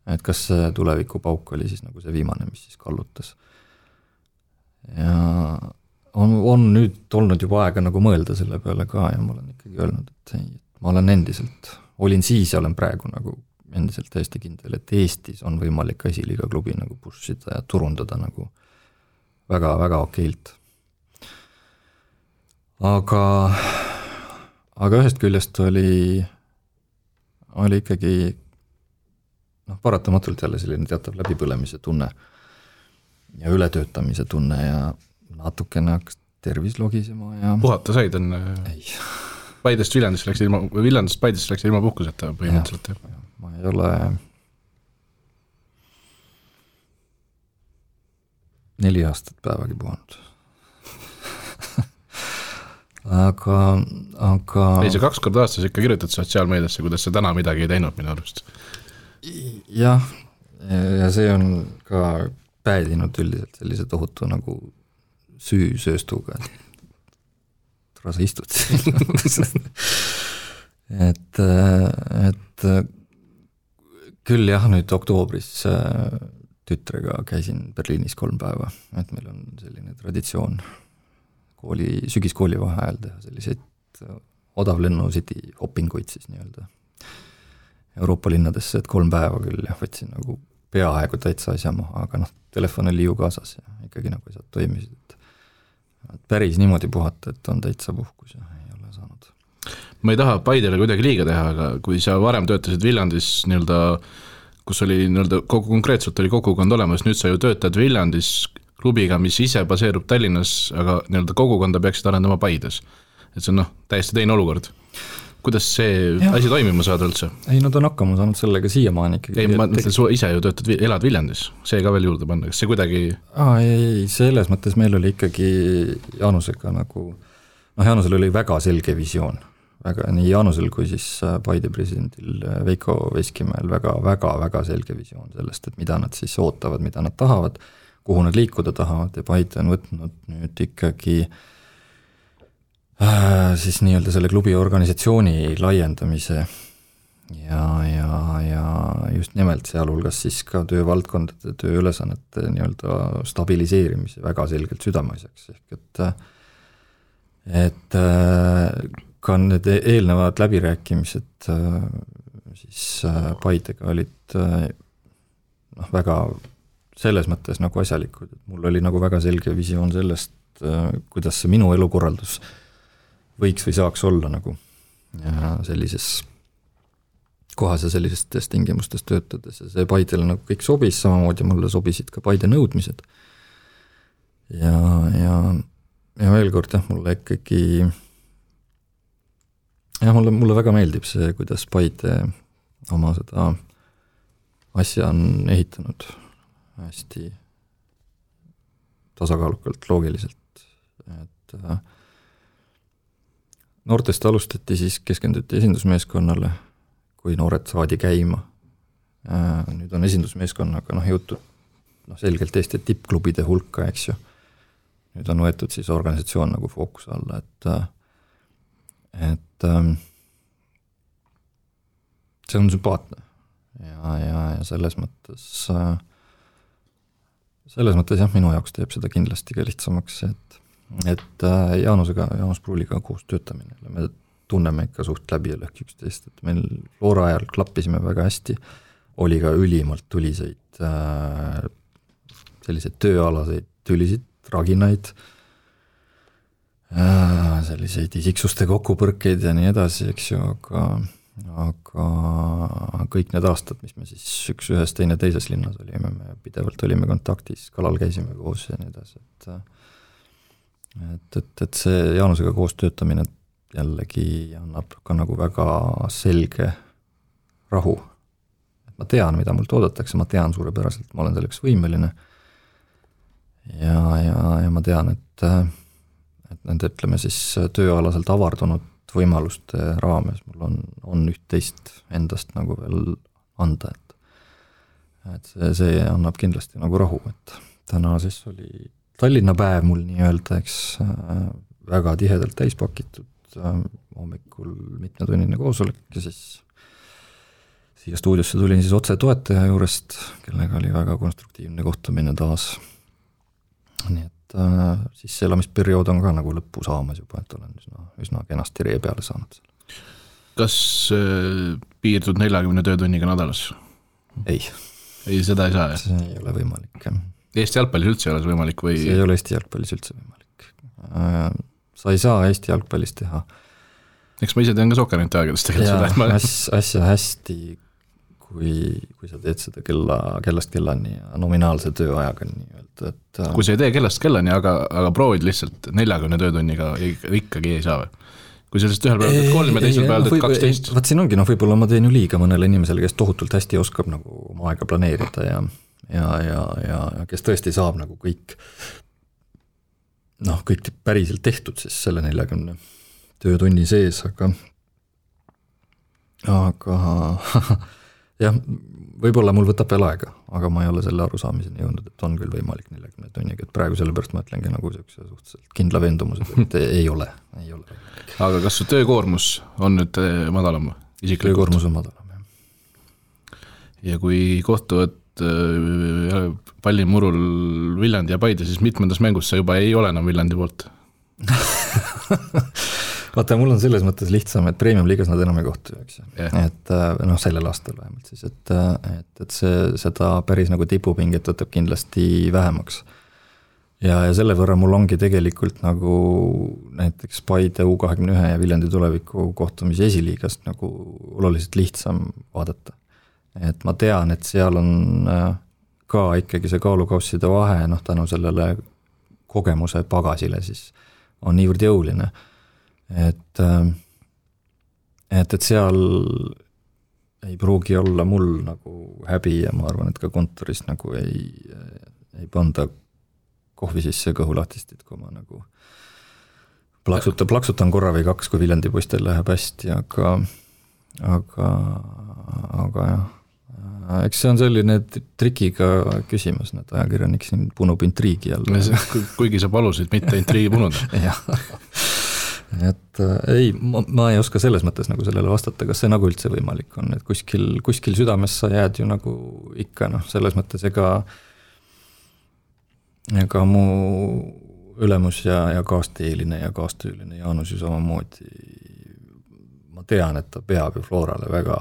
et kas see tulevikupauk oli siis nagu see viimane, mis siis kallutas. Ja on nüüd olnud juba aega nagu mõelda selle peale ka ja ma olen ikkagi öelnud, et ei, ma olen endiselt, olin siis ja olen praegu nagu endiselt täiesti kindel, et Eestis on võimalik esiliiga klubi nagu pushida ja turundada nagu väga-väga okeilt. Aga ühest küljest oli ikkagi paratamatult jälle selline teatav läbipõlemise tunne ja ületöötamise tunne ja natukene hakkas tervis logisema ja puhata said on? Ei. Paidest Viljandist läks ilma puhkuseta põhimõtteliselt. Ja, ma ei ole 4 aastat päevagi puhanud. aga ei, see 2 korda aastas ikka kirjutad sotsiaalmeediasse, kuidas sa täna midagi ei teinud minu arust. Jah, ja see on ka päädinud üldiselt sellise tohutu nagu süüsööstuga, sa istud et küll jah, nüüd oktoobris tütrega käisin Berliinis 3 päeva, et meil on selline traditsioon sügiskooli vaheajal teha selliseid odavlennusid hoppinguid siis nii-öelda Euroopa linnadesse, et 3 päeva küll jah, võtsin nagu peaaegu täitsa asja maha, aga telefon oli ju kaasas ja ikkagi nagu asjad toimisid, et päris niimoodi puhata, et on täitsa puhkus ja ei ole saanud. Ma ei taha Paidele kuidagi liiga teha, aga kui sa varem töötasid Viljandis nii-öelda, kus oli nii-öelda konkreetselt oli kogukond olemas, nüüd sa ju töötad Viljandis klubiga, mis ise baseerub Tallinnas, aga nii-öelda kogukonda peaksid arendama Paides. Et see on täiesti teine olukord. Kuidas see asi toimima saada üldse? Ei, nad on hakkama saanud sellega siiamaani ikkagi. Ei, ma mõtlen, sa ise ju töötad, elad Viljandis, see ka veel juurde panna, kas see kuidagi... Ei, selles mõttes meil oli ikkagi Jaanusega nagu, Jaanusel oli väga selge visioon, nii Jaanusel kui siis Paide presidendil Veiko Veskimäel väga selge visioon sellest, et mida nad siis ootavad, mida nad tahavad, kuhu nad liikuda tahavad ja Paide on võtnud nüüd ikkagi siis nii-öelda selle klubi organisatsiooni laiendamise ja just nimelt sealhulgas siis ka töövaldkondade, tööülesannete nii-öelda stabiliseerimise väga selgelt südameasjaks, ehk et ka need eelnevad läbirääkimised siis Paidega olid väga selles mõttes nagu asjalikud, et mul oli nagu väga selge visioon sellest, kuidas see minu elukorraldus võiks või saaks olla nagu ja sellises kohas ja sellistes tingimustes töötades ja see Paidele nagu kõik sobis, samamoodi mulle sobisid ka Paide nõudmised ja veel kord mulle ikkagi mulle väga meeldib see, kuidas Paide oma seda asja on ehitanud hästi tasakaalukalt, loogiliselt, et noortest alustati, siis keskenduti esindusmeeskonnale, kui noored saadi käima. Nüüd on esindusmeeskonnaga jõutud noh, selgelt Eesti tippklubide hulka, eks ju. Nüüd on võetud siis organisatsioon nagu fookuse alla, et see on sümpaatne ja selles mõttes jah, minu jaoks teeb seda kindlasti ka lihtsamaks, et Jaanus Pruuliga koos töötamine, me tunneme ikka suht läbi ja lõhki üksteist, et meil Flora ajal klappisime väga hästi, oli ka ülimalt tuliseid selliseid tööalaseid tülisid, traginaid, selliseid isiksuste kokkupõrkeid ja nii edasi, eks ju, aga kõik need aastad, mis me siis ühes teine teises linnas olime, me pidevalt olime kontaktis, kalal käisime koos ja nii edasi, et see Jaanusega koos töötamine jällegi annab ka nagu väga selge rahu. Ma tean, mida mult oodatakse, ma tean suurepäraselt, ma olen selleks võimeline ja ma tean, et nende, ütleme siis tööalaselt avardunud võimaluste raames mul on üht-teist endast nagu veel anda, et see annab kindlasti nagu rahu, et täna siis oli Tallinna päev mul nii-öelda, eks väga tihedalt täispakitud, hommikul mitmetunnine koosolek ja siis siia stuudiosse tulin siis otse toetaja juurest, kellega oli väga konstruktiivne kohtumine taas. Nii et siis see elamisperiood on ka nagu lõppu saamas juba, et olen üsna kenasti ree peale saanud. Kas piirdud 40 töötunniga nädalas? Ei, seda ei saa, jah? See ei ole võimalik. Eesti jalgpallis üldse ei ole see võimalik või? See ei ole Eesti jalgpallis üldse võimalik. Sa ei saa Eesti jalgpallis teha. Eks ma ise tean ka Sokkerenti aegadest tegelikult seda. Asja hästi, kui sa teed seda kellast kellani ja nominaalse tööajaga nii-öelda. Kui sa ei tee kellast kellani, aga proovid lihtsalt 40 töötunniga ikkagi ei saa või? Kui sellest ühel päeval teed 3 ja teisel päeval teed 12? Vaat siin ongi, võib-olla ma teen ju liiga mõnele inimesele, kes tohutult hästi oskab nagu oma aega planeerida ja kes tõesti saab nagu kõik päriselt tehtud siis selle 40 töötunni sees, aga jah, võib-olla mul võtab veel aega, aga ma ei ole selle arusaamiseni jõudnud, et on küll võimalik 40 tunniga, et praegu sellepärast ma ütlengi nagu suhteliselt kindla veendumused, et ei ole. Aga kas su töökoormus on nüüd madalam? Töökoormus on madalam, jah. Ja kui kohtuvad pallimurul Viljandi ja Paide, siis mitmendas mängus sa juba ei ole enam Viljandi poolt? Vaata, mul on selles mõttes lihtsam, et premium-liigas nad enam ei kohtu, eks. Et sellel aastal vähemalt siis, et seda päris nagu tipupinget võtab kindlasti vähemaks. Ja selle võrra mul ongi tegelikult nagu näiteks Paide U21 ja Viljandi tuleviku kohtumise esiliigast nagu oluliselt lihtsam vaadata. Et ma tean, et seal on ka ikkagi see kaalukausside vahe, tänu sellele kogemuse pagasile siis on niivõrd jõuline. Et seal ei pruugi olla mul nagu häbi ja ma arvan, et ka kontoris nagu ei panda kohvi sisse kõhulahtistit, kui ma nagu plaksutan korra või 2, kui Viljandi poistel läheb hästi, aga jah. Eks see on selline trikiga küsimus, need ajakirjanik siin punub intriigi jälle. Kuigi sa palusid mitte intriigi punuda. Jah. Et ei, ma ei oska selles mõttes nagu sellele vastata, kas see nagu üldse võimalik on, et kuskil südames sa jääd ju nagu ikka, selles mõttes ega mu ülemus ja kaasteeline ja kaastüüline Jaanus ju samamoodi, ma tean, et ta peab ju Florale väga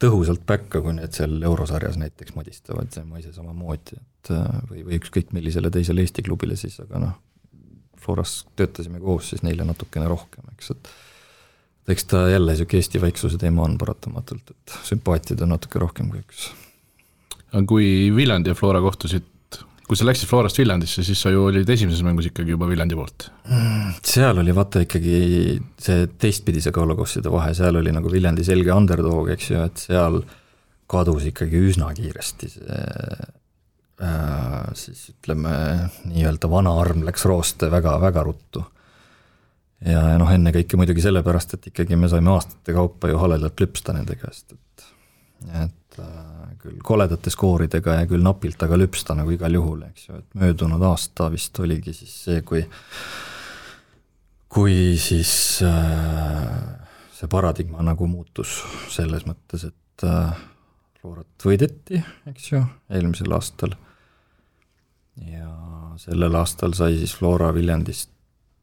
tõhusalt päkka, kui need seal eurosarjas näiteks modistavad, see ma ise samamoodi, et või ükskõik millisele teisele Eesti klubile siis, aga Floras töötasime koos siis neile natukene rohkem, eks, et eks ta jälle siuke Eesti vaiksuse teema on paratamatult, et sümpaatiad on natuke rohkem kui üks. Kui Viljandi ja Flora kohtusid, kui sa läksid Florast Viljandisse, siis sa ju olid esimeses mängus ikkagi juba Viljandi poolt. Seal oli vaata ikkagi see teistpidise kaalukosside vahe, seal oli nagu Viljandi selge underdog, eks ju, et seal kadus ikkagi üsna kiiresti see siis ütleme nii-öelda vana arm läks rooste väga ruttu. Ja enne kõike muidugi sellepärast, et ikkagi me saime aastate kaupa ju haledalt lüpsta nende käest, et küll koledate skooridega ja küll napilt, aga lüpsta nagu igal juhul, eks ju, et möödunud aasta vist oligi siis see, kui siis see paradigma nagu muutus selles mõttes, et Florat võideti, eks ju, eelmisel aastal ja sellel aastal sai siis Flora Viljandist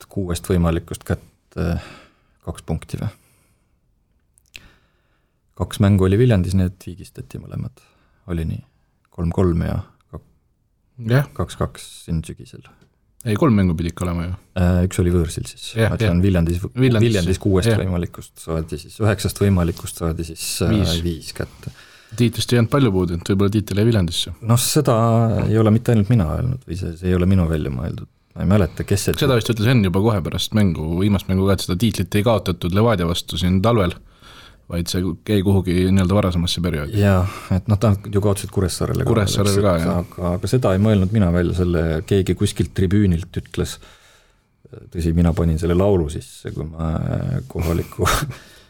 6 võimalikust kätte 2 punkti või? 2 mängu oli Viljandis, need viigistati mõlemad. Oli nii 3-3 ja 2-2 siin sügisel. Ei, 3 mängu pidi ikka olema ju. Üks oli võõrsil siis. Viljandis 6 võimalikust saadi siis, 9 võimalikust saadi siis 5 kätte. Tiitlist ei jäänud palju puudu, et võib-olla tiitel jäi Viljandisse. No seda ei ole mitte ainult mina öelnud või see ei ole minu välja mõeldud. Ma ei mäleta, kes see... Seda vist ütles Enn juba kohe pärast mängu, viimast mängu ka, et seda tiitlit ei kaotatud Levadia vastu siin talvel, vaid see jäi kuhugi nii-öelda varasemasse perioodi. Jaa, et ta ju kaotasid Kuressaarele ka, jah. Aga seda ei mõelnud mina välja, selle keegi kuskilt tribüünilt ütles, tõsi, mina panin selle laulu sisse, kui ma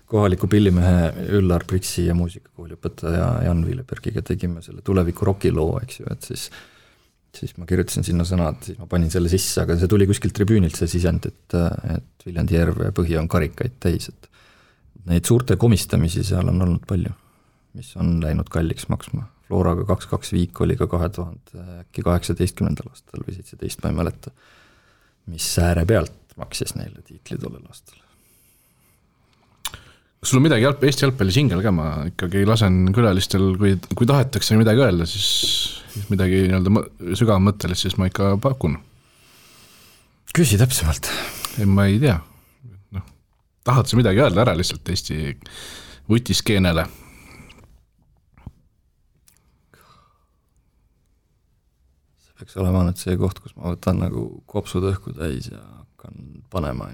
kohaliku pillimehe Üllar Priksi ja muusikakooliõpetaja Jan Viilebergiga tegime selle tuleviku rokiloo, eks ju, et siis ma kirjutasin sinna sõnad, siis ma panin selle sisse, aga see tuli kuskilt tribüünilt see sisend, et Viljandi järv ja põhi on karikaid täis, et neid suurte komistamisi seal on olnud palju, mis on läinud kalliks maksma. Floraga 2-2 viik oli ka 2018. aastal või 17, ma ei mäleta, mis ääre pealt maksis neile tiitli tollel aastal. Kas sul on midagi Eesti jalgpalli singel ka, ma ikkagi lasen külalistel, kui tahetakse midagi öelda, siis midagi sügavmõttelist, siis ma ikka pakun. Küsi täpsemalt. Ei, ma ei tea. Tahad sa midagi öelda ära lihtsalt Eesti vutiskeenele? See peaks olema nüüd see koht, kus ma võtan nagu kopsud õhku täis ja hakkan panema.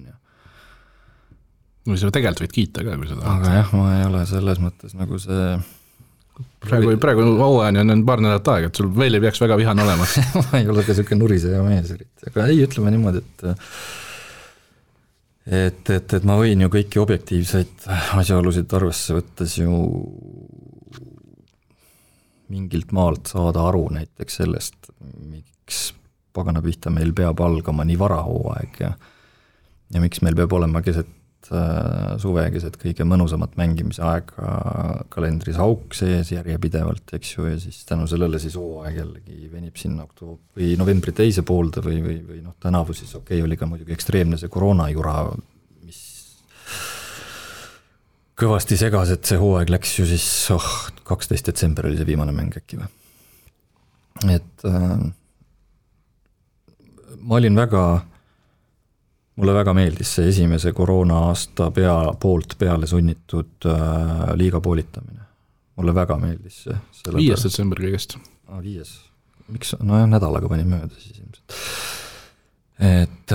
Või sa tegelikult võid kiita ka, kui sa tahad. Aga jah, ma ei ole selles mõttes nagu see... Praegu hooajani on paar nädalat aega, et sul veel ei peaks väga vihane olema. Ma ei ole ka selline nuriseja mees. Aga ei, ütleme niimoodi, et ma võin ju kõiki objektiivseid asjaolusid arvesse võttes ju mingilt maalt saada aru näiteks sellest, miks pagana pihta meil peab algama nii varahooaeg ja miks meil peab olema keset suve, keset kõige mõnusamat mängimise aega kalendris auk sees järjepidevalt, eks ju, ja siis tänu sellele siis hooaeg jällegi venib sinna või novembri teise poolde või tänavu siis oli ka muidugi ekstreemne see koroonajura, mis kõvasti segas, et see hooaeg läks ju siis 12. detsember oli see viimane mäng äkki või. Et mulle väga meeldis see esimese koroona aasta poolt peale sunnitud liiga poolitamine. Mulle väga meeldis see. 5. detsember kõigest. 5. Miks? No jah, nädalaga panin mööda siis ilmselt. Et...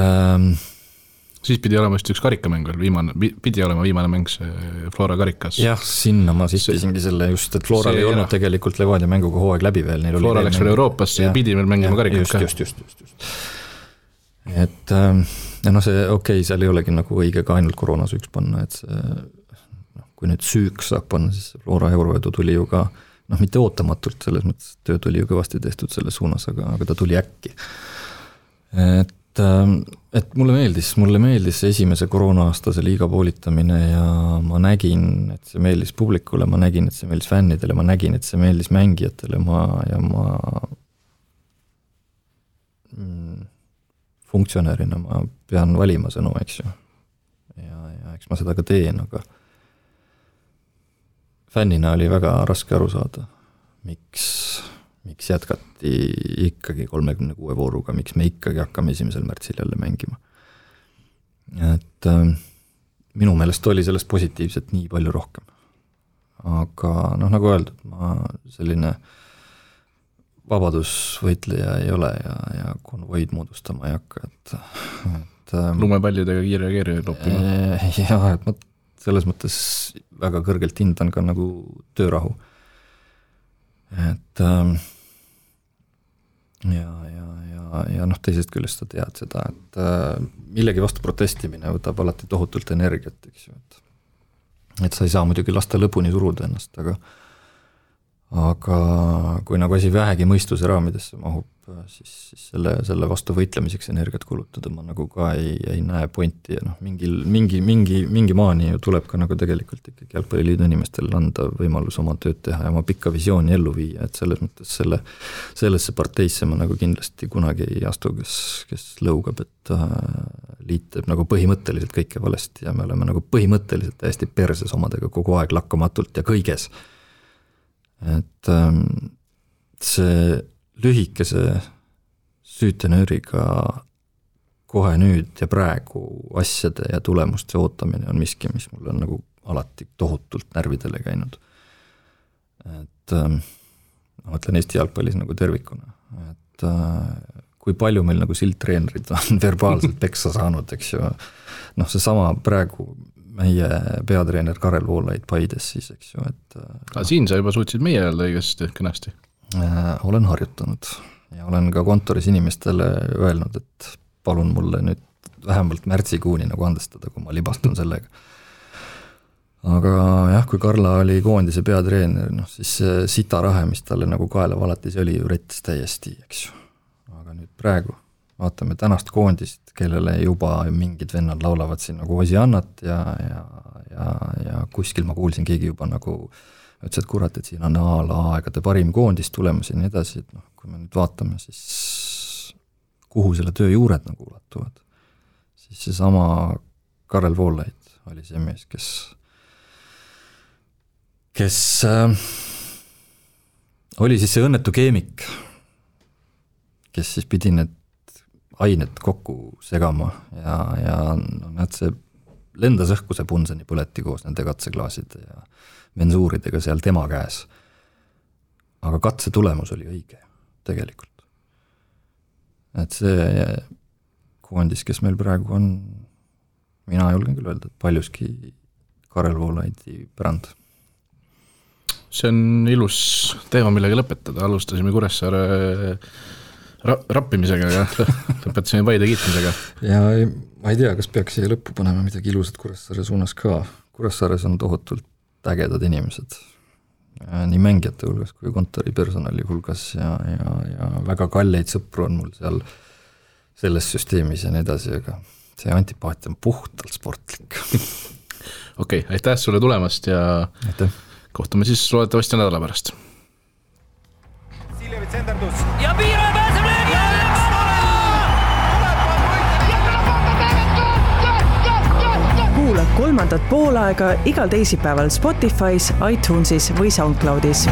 siis pidi olema just üks karikamäng veel, pidi olema viimane mäng see Flora karikas. Jah, sinna ma sistisingi selle just, et Flora ei olnud tegelikult Levadia mänguga hooaeg läbi veel. Flora läks veel Euroopasse ja pidi veel mängima karikas. Just. Et see seal ei olegi nagu õige ka ainult koroonasüüks panna, et see, kui nüüd süüks saab panna, siis Flora euroedu tuli ju ka, mitte ootamatult, selles mõttes tööd oli ju kõvasti tehtud selles suunas, aga ta tuli äkki. Et mulle meeldis esimese koroona-aastase liiga poolitamine ja ma nägin, et see meeldis publikule, ma nägin, et see meeldis fännidele, ma nägin, et see meeldis mängijatele ma funktsionärina ma pean valima sõnu, eks ju. Ja eks ma seda ka teen, aga fännina oli väga raske aru saada, miks jätkati ikkagi 36 vooruga, miks me ikkagi hakkame 1. märtsil jälle mängima. Et minu meelest oli sellest positiivset nii palju rohkem. Aga nagu öeldud, ma selline vabadusvõitleja ei ole ja konvoid moodustama ei hakka, et lumepallidega kiire loppima. Jah, et ma selles mõttes väga kõrgelt hindan ka nagu töörahu. Et ja teisest küljest sa tead seda, et millegi vastu protestimine võtab alati tohutult energiat, eks ju, et sa ei saa muidugi lasta lõpuni suruda ennast, aga kui nagu asi vähegi mõistuse raamidesse mahub, siis selle vastu võitlemiseks energiat kulutada ma nagu ka ei näe pointi ja noh, mingi maani ju tuleb ka nagu tegelikult ikkagi Jalgpalliliidu inimestel anda võimalus oma tööd teha ja oma pikka visiooni ellu viia, et selles mõttes sellesse parteisse ma nagu kindlasti kunagi ei astu, kes lõugab, et liit teeb nagu põhimõtteliselt kõike valesti ja me oleme nagu põhimõtteliselt täiesti perses omadega kogu aeg lakkamatult ja kõiges. Et see lühikese süütenööriga kohe nüüd ja praegu asjade ja tulemuste ootamine on miski, mis mul on nagu alati tohutult närvidele käinud. Et ma mõtlen Eesti jalgpallis nagu tervikuna, et kui palju meil nagu sildtreenerid on verbaalselt peksa saanud, eks ju, noh see sama praegu meie peatreener Karel Voolaid Paides siis, eks ju, et siin sa juba suutsid meie öelda õigesti kõnasti. Olen harjutanud ja olen ka kontoris inimestele öelnud, et palun mulle nüüd vähemalt märtsikuuni nagu andestada, kui ma libastun sellega. Aga jah, kui Karla oli koondise peatreener, noh siis sitarahe, mis talle nagu kaela valatis, oli ju rettis täiesti, eks ju. Aga nüüd praegu vaatame tänast koondist, kellele juba mingid vennad laulavad siin nagu Osiannat ja kuskil ma kuulsin keegi juba nagu ütles, et kurat, et siin on aegade parim koondis tulemas ja nii edasi, et noh, kui me nüüd vaatame, siis kuhu selle töö juured nagu ulatuvad, siis see sama Karel Voolaid oli see mees, kes oli siis see õnnetu keemik, kes siis pidi need ained kokku segama ja no, näed, see lendas õhku see Punseni põleti koos nende katseklaaside ja mensuuridega seal tema käes. Aga katse tulemus oli õige tegelikult. Et see koondis, kes meil praegu on, mina julgen küll öelda, et paljuski Karel Voolaidi pärand. See on ilus teema, millega lõpetada. Alustasime Kuressaare rappimisega ja lõpetasime Paide kiitmisega. Ja ma ei tea, kas peaks siia lõppu panema midagi ilusat Kuressaare suunas ka. Kuressaares on tohutult ägedad inimesed, nii mängijate hulgas kui kontori personali hulgas ja väga kalleid sõpru on mul seal selles süsteemis ja nii edasi, aga see antipaatia on puhtalt sportlik. Okei, aitäh sulle tulemast ja kohtume siis loodetavasti nädala pärast. Ja Piiro pääseb löögi! Kuula kolmandat poolaega igal teisipäeval Spotify's, iTunesis või SoundCloudis.